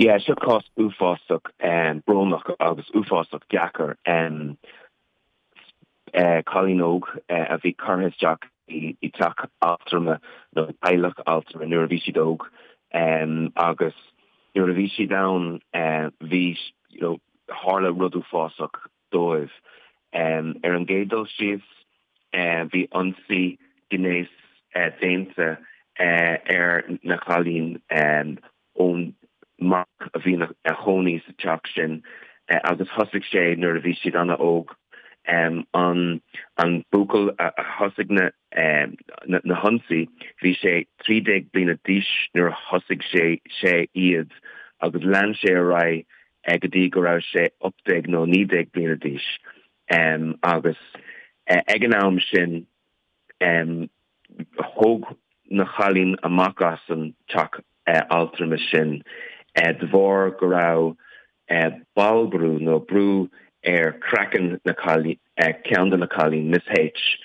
Yeah, seo cás uafásach brónach agus uafásach deacair. Cailín óg a bhí curtha isteach i dteach altrama nó teaghlach altrama nuair a bhí siad óg agus nuair a bhí siad ann bhí, you know, tharla rud uafásach dóibh. Ar an gcéad dul síos, bhí ionsaí gnéis déanta ar na cailín ón mac a bhí ina chónaí sa teach sin agus thosaigh sé nuair a bhí siad an-óg. An an buachaill a thosaigh na na hionsaí, bhí sé 13 bliana d'aois nuair a thosaigh sé sé iad agus lean sé ar aghaidh go dtí go raibh sé 18 nó 19 bliana d'aois agus ag an am sin thóg na cailín amach as an teach altrama sin de bharr go raibh ballbhrú nó brú ar craiceann na cailín, ceann de na cailín, Miss H,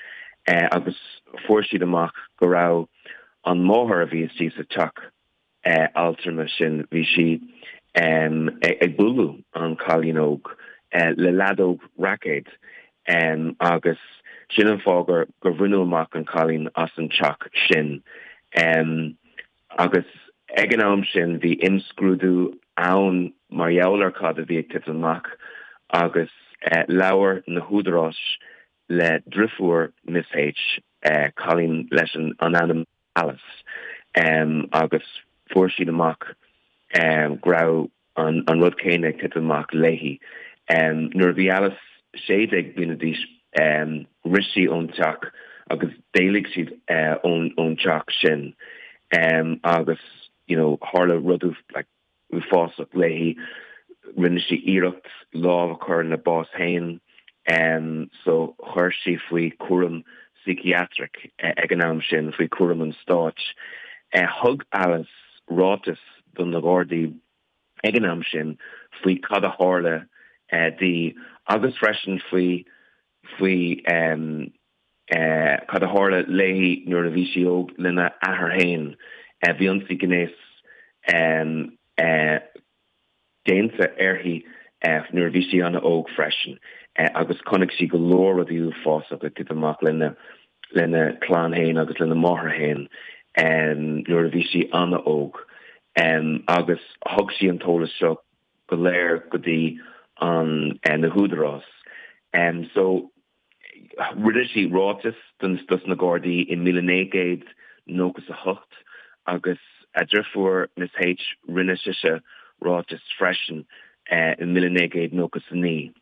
agus fuair siad amach go raibh an máthair a bhí istigh sa teach altrama sin, bhí sí ag bualadh an cailín óg le leadóg raicéid agus sin an fáth gur gur bhaineadh amach an cailín as an teach sin. Agus ag an am sin bhí imscrúdú ann mar gheall ar cad a bhí ag titim amach agus labhair na húdaráis le driofúr Miss H, cailín leis an ainm Alice agus fuair siad amach go raibh an rud céanna ag titim amach léi. Nuair a bhí Alice 16 bliana d'aois rith sí ón teach agus d'éalaigh siad ón teach sin agus you know tharla rud like uafásach léi. Rinne sí iarracht lámh a chur ina bás féin so chuir sí faoi chúram psychiatric ag an am sin, faoi chúram an stáit. Thug Alice ráiteas do na Gardaí ag an am sin faoi cad a tharla di agus freisin faoi faoi cad a tharla léi nuair a bhí sí óg lena athair féin. Bhí ionsaí gnéis déanta uirthi nuair a bhí sí an-óg freisin agus chonaic sí go leor rudaí uafásacha ag titim amach lena lena clann féin agus lena máthair féin nuair a bhí sí an-óg agus thug sí an t-eolas seo go léir go dtí an na húdarás. So Rinne sí ráiteas dos na Gardaí i 1998 agus a driofúr Miss H rinne sise ráiteas freisin i 1999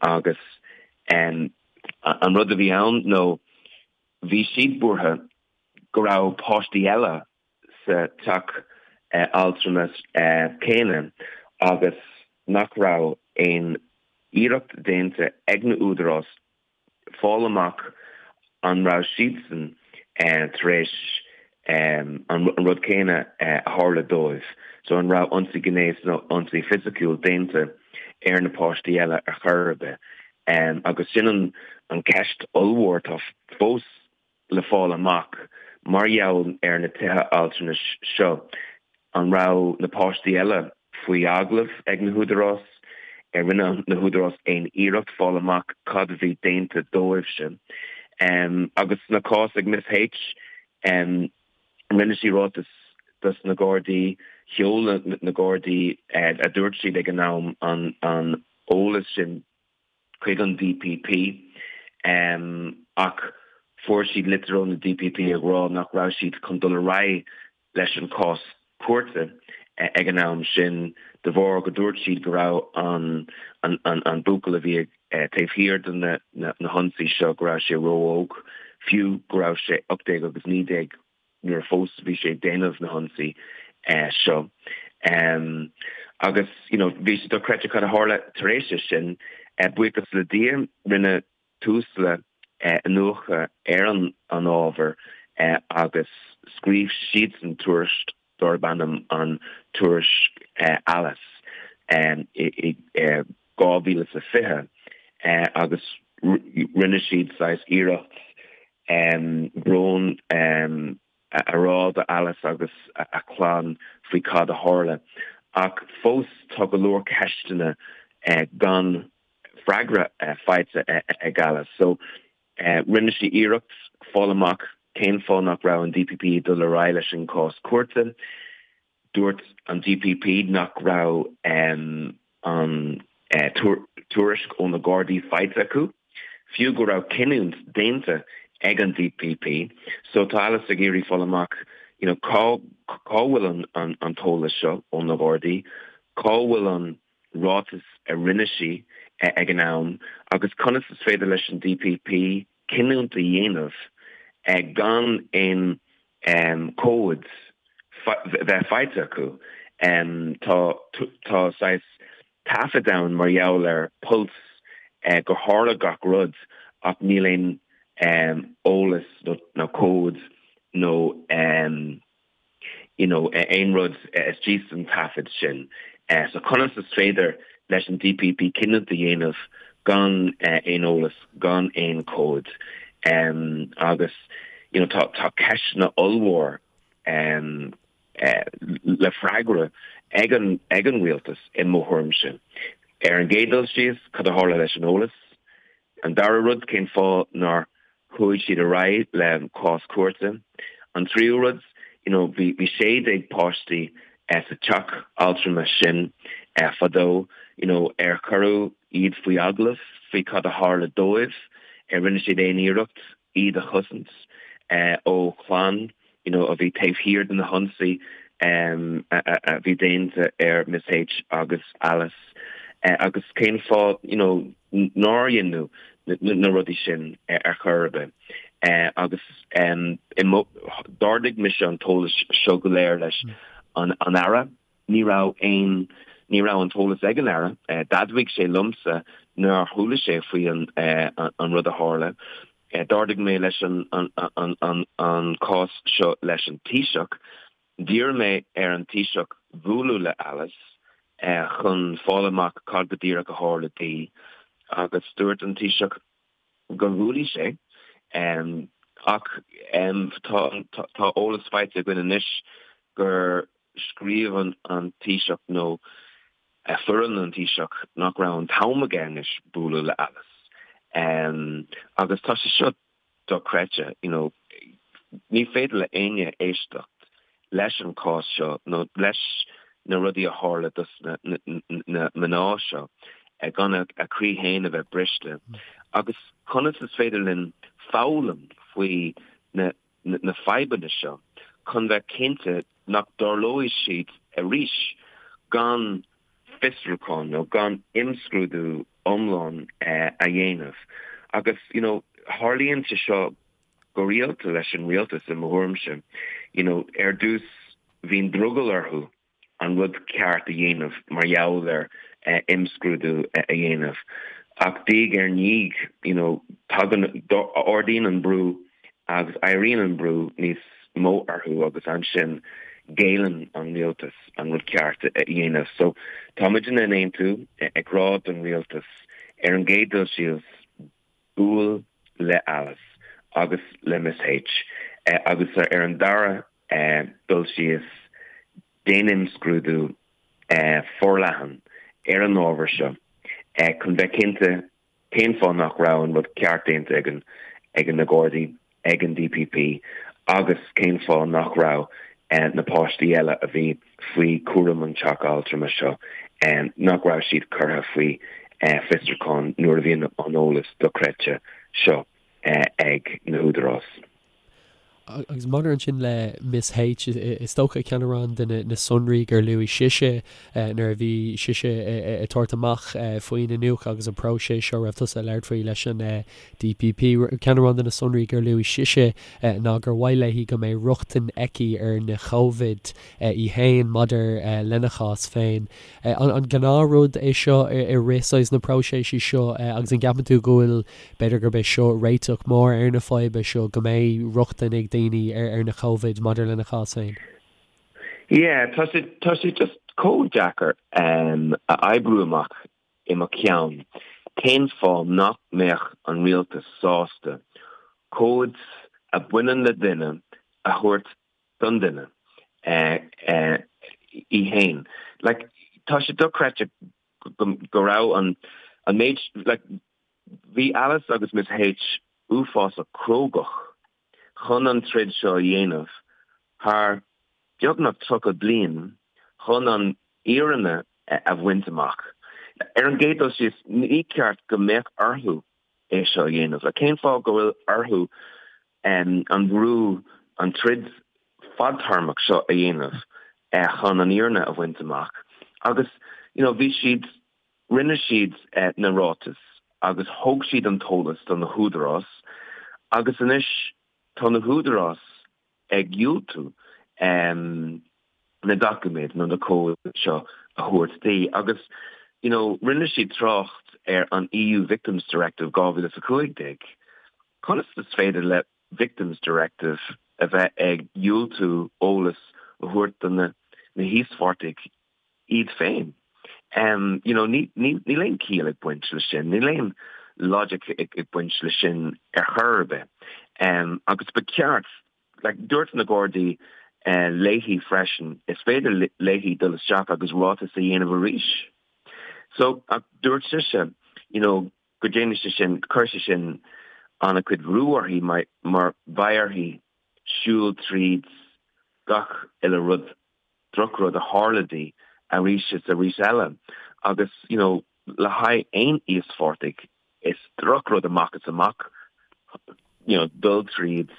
agus an rud a bhí ann nó bhí siad buartha go raibh páistí eile sa teach altrama céanna agus nach raibh aon iarracht déanta ag na údarás fáil amach an raibh siadsan tar éis an rud céanna a tharla dóibh, so an raibh ionsaí gnéis nó ionsaí fisiciúil déanta ar na páistí eile ar chor ar bith. Agus sin an ceist ollmhór atá fós le fáil amach mar gheall ar na tithe altranais seo. An raibh na páistí eile faoi agallamh ag na húdarás? Ar rinne na húdarás aon iarracht fáil amach cad a bhí déanta dóibhse? Agus sna cás ag Miss H, rinne sí ráiteas dos na Gardaí, sheol na Gardaí, a dúirt siad ag an am, an eolas sin chuig an DPP ach fuair siad litir ó na DPP ag rá nach raibh siad chun dul ar aghaidh leis an cás cúirte ag an am sin de bharr go dúirt siad go raibh an an buachaill a bhí taobh thiar de na na hionsaí seo go raibh sé ró-óg, fiú go raibh sé 18 agus 19 nuair a fós bhí sé ag déanamh na hionsaí seo. Agus you know bhí sé dochreidte cad a tharla tar éis sin. Buíochas le Dia rinne Tusla iniúchadh ar an an ábhar agus scríobh siadsan tuairisc darb ainm an Tuairisc Alice i 2020 agus rinne siad saghas iarracht brón a rá do Alice agus a clann faoi cad a tharla. Ach fós tá go leor ceisteanna gan freagra faighte ag Alice. So rinne sí iarracht fáil amach cén fáth nach raibh an DPP ag dul ar aghaidh leis an cás cúirte. Dúirt an DPP nach raibh an tuairisc ó na Gardaí faighte acu, fiú go raibh cinniúint déanta ag an DPP. So tá Alice ag iarraidh fáil amach you know cá cá bhfuil an an t-eolas seo ó na Gardaí, cá bhfuil an ráiteas a rinne sí ag an am agus conas is féidir leis an DPP cinniúint a dhéanamh gan aon comhad bheith faighte acu. Tá tá saghas taifead ann mar gheall ar Pulse gur tharla gach rud ach níl aon eolas nó comhad nó you know aon rud istigh san taifead sin. So conas is féidir leis an DPP cinniúint a dhéanamh gan aon eolas, gan aon comhad? Agus you know tá tá ceisteanna ollmhór le freagra ag an ag an rialtas i mo thuairimse. Ar an gcéad dul síos, cad a tharla leis an eolas? An dara rud, cén fáth nár chuaigh siad ar aghaidh le cás cúirte? An tríú rud, you know, bhí bhí 16 páistí sa teach altrama sin fadó, you know, ar cuireadh iad faoi agallamh faoi cad a tharla dóibh? Ar rinne siad aon iarracht iad a chosaint ó chlann you know, a bhí taobh thiar de na hionsaí a bhí déanta ar Ms H agus Alice agus cén fáth you know, nár deineadh na rudaí sin ar chor ar bith. Agus d'ardaigh mise an t-eolas seo go léir leis an Aire. Ní raibh aon, ní raibh an t-eolas ag an Aire. D'admhaigh sé liomsa nár chuala sé faoi an rud a tharla. D'ardaigh mé leis an an cás seo leis an Taoiseach. D'iarr mé ar an Taoiseach bualadh le Alice chun fáil amach cad go díreach a tharla di agus dúirt an Taoiseach gur bhuailfeadh sé. Ach tá eolas faighte againn anois gur scríobh an Taoiseach nó foireann an Taoiseach nach raibh an t-am aige anois bualadh le Alice. Agus tá sé seo dochreidte, you know, ní féidir le éinne éisteacht leis an cás seo nó leis na rudaí a tharla dos na mná seo gan a croí féin a bheith briste. Agus conas is féidir linn foghlaim faoi na na fadhbanna seo chun bheith cinnte nach dtarlóidh siad arís gan fiosrúchán nó gan imscrúdú iomlán a dhéanamh. Agus, you know, tharlaíonn sé seo go rialta leis an rialtas i mo thuairimse. You know, ar dtús bíonn drogall orthu an rud ceart a dhéanamh mar gheall ar imscrúdú a dhéanamh. Ach diaidh ar ndiaidh, you know, tagann, ardaíonn an brú agus éiríonn an brú níos mó orthu agus ansin géilleann an rialtas an rud ceart a dhéanamh. So tá muidne in Aontú ag rá don rialtas ar an gcéad dul síos, buail le Alice agus le Ms H agus ar an dara dul síos, déan imscrúdú forleathan ar an ábhar seo chun bheith cinnte cén fáth nach raibh an rud ceart déanta ag na Gardaí, ag an DPP agus cén fáth nach raibh na páistí eile a bhí faoi chúram an teach altrama seo, nach raibh siad curtha faoi fiosrúchán nuair a bhí an eolas dochreidte seo ag na húdaráis. Agus maidir ansin le Ms H, is dócha ceann amháin de na sonraí gur luaigh sise nuair a bhí sise ag tabhairt amach faoin iniúchadh agus an próiseas seo a raibh tusa ag labhairt faoi leis an DPP, ceann amháin de na sonraí gur luaigh sise ná gur mhaith léi go mbeidh rochtain aici ar na comhaid í féin maidir lena chás féin. An gnáthrud é seo i rith saghas na próiseas seo agus an gceapann tú go bhfuil, b'fhéidir gurb é seo réiteach mór ar na fadhbanna seo, go mbeidh rochtain ag daoine ar na comhaid maidir lena chás féin? Yeah, tá sé, tá sé just chomh deacair a oibriú amach i mo cheann cén fáth nach mbeadh an rialtas sásta comhaid a bhaineann le duine a thabhairt don duine í féin. Like, tá sé dochreidte go raibh an an méid, like, bhí Alice agus Miss H uafásach crógach chun an troid seo a dhéanamh thar beagnach 30 bliain chun an fhírinne a bhaint amach. Ar an gcéad dul síos, ní ceart go mbeadh orthu é seo a dhéanamh. Cén fáth go bhfuil orthu an brú, an troid fadtéarmach seo a dhéanamh chun an fhírinne a bhaint amach? Agus you know bhí siad, rinne siad na ráitis agus thug siad an t-eolas do na húdaráis agus anois tá na húdaráis ag diúltú na doiciméid nó na comhaid seo a thabhairt di agus you know rinne siad trácht ar an EU Victims Directive 2015. Conas is féidir le Victims Directive a bheith ag diúltú eolas a thabhairt do na híospartaigh iad féin. You know, níl aon ciall ag baint le sin, níl aon logic ag baint le sin ar chor ar bith. Agus ba cheart, like, dúirt na Gardaí léi freisin, is féidir léi dul isteach agus ráiteas a dhéanamh arís. So, ach dúirt sise, you know, go ndéanfaidh sé sin, cuirfidh sé sin an-chuid bhrú uirthi mar beidh uirthi siúl tríd gach uile rud drochrud a tharla di arís is arís eile agus you know le haghaidh aon íospartaigh is drochrud amach is amach you know dul tríd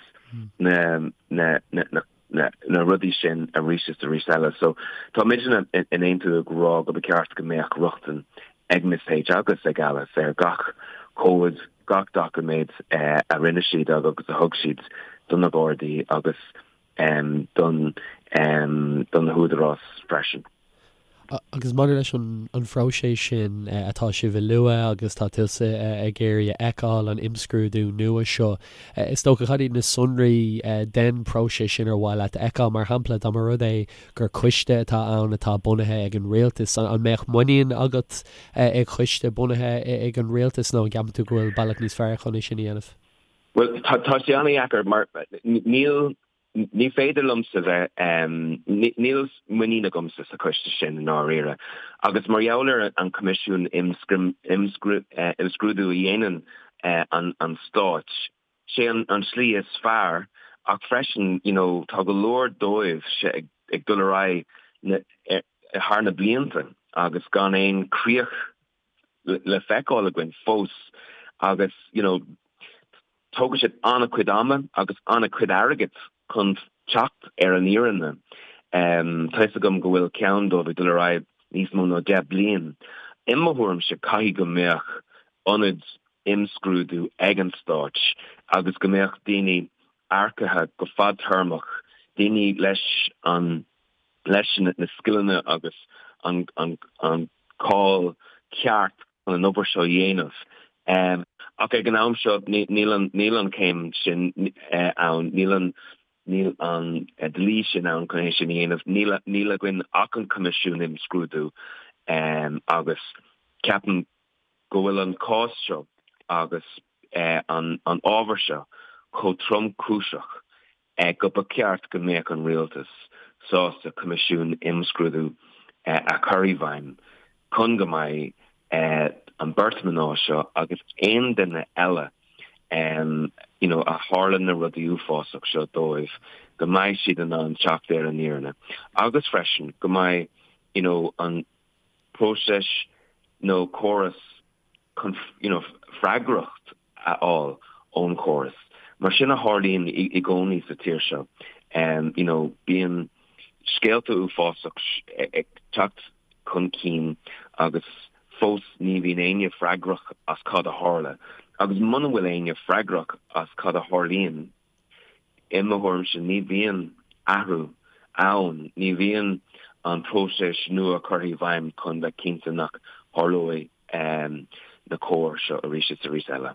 na na na na na na rudaí sin arís is arís eile. So tá muidne in Aontú ag rá go ba cheart go mbeadh rochtain ag Ms H agus ag Alice ar gach comhad, gach doiciméad a rinne siad agus a thug siad do na Gardaí agus don do na húdaráis freisin. Agus maidir leis an phróiseas sin atá sibh a lua agus tá tusa ag iarraidh a fheiceáil, an imscrúdú nua seo, is dócha, cad iad na sonraí den phróiseas sin ar mhaith leat a fheiceáil? Mar shampla, dá mba rud é gur coiste atá ann atá bunaithe ag an rialtas, an mbeadh muinín agat i gcoiste bunaithe ag an rialtas nó an gceapann tú go bhfuil bealach níos fearr chun é sin a dhéanamh? Bhuel, tá sé an-dheacair mar níl, ní féidir liomsa bheith, níl muinín agamsa sa choiste sin i ndáiríre. Agus mar gheall ar an Coimisiún Imscrúdú a dhéanann an Stáit, sé an tslí is fearr ach freisin, you know, tá go leor dóibh ag dul ar aghaidh thar na blianta agus gan aon críoch le feiceáil againn fós agus you know tógann siad an-chuid ama agus an-chuid airgid chun teacht ar an fhírinne. Tá fhios agam go bhfuil ceann dóibh ag dul ar aghaidh níos mó ná 10 bliain. I mo thuairimse caithfidh go mbeadh ionad imscrúdú ag an stáit agus go mbeadh daoine earcaithe go fadtéarmach, daoine leis an leis na scileanna agus an cáil ceart chun an obair seo a dhéanamh. Ach ag an am seo níl an níl an chéim sin ann, níl an níl an dlí sin ann chun é sin a dhéanamh. Níl níl againn ach an Coimisiún Imscrúdú agus ceapaim go bhfuil an cás seo agus an ábhar seo chomh tromchúiseach go ba cheart go mbeadh an rialtas sásta coimisiún imscrúdú a chur i bhfeidhm chun go mbeidh an beirt mná seo agus aon duine eile you know a tharla na rudaí uafásach seo dóibh go mbeidh siad in ann teacht ar an fhírinne agus freisin go mbeidh you know an próiseas nó córas chun you know freagracht a fháil ón chóras. Mar sin a tharlaíonn i gcónaí sa tír seo. You know bíonn scéalta uafásach ag teacht chun cinn agus fós ní bhíonn éinne freagrach as cad a tharla. Agus muna bhfuil éinne freagrach as cad a tharlaíonn, I mo thuairimse, ní bhíonn athrú ann, ní bhíonn an próiseas nua curtha i bhfeidhm chun bheith cinnte nach tharlóidh na cor seo arís is arís eile.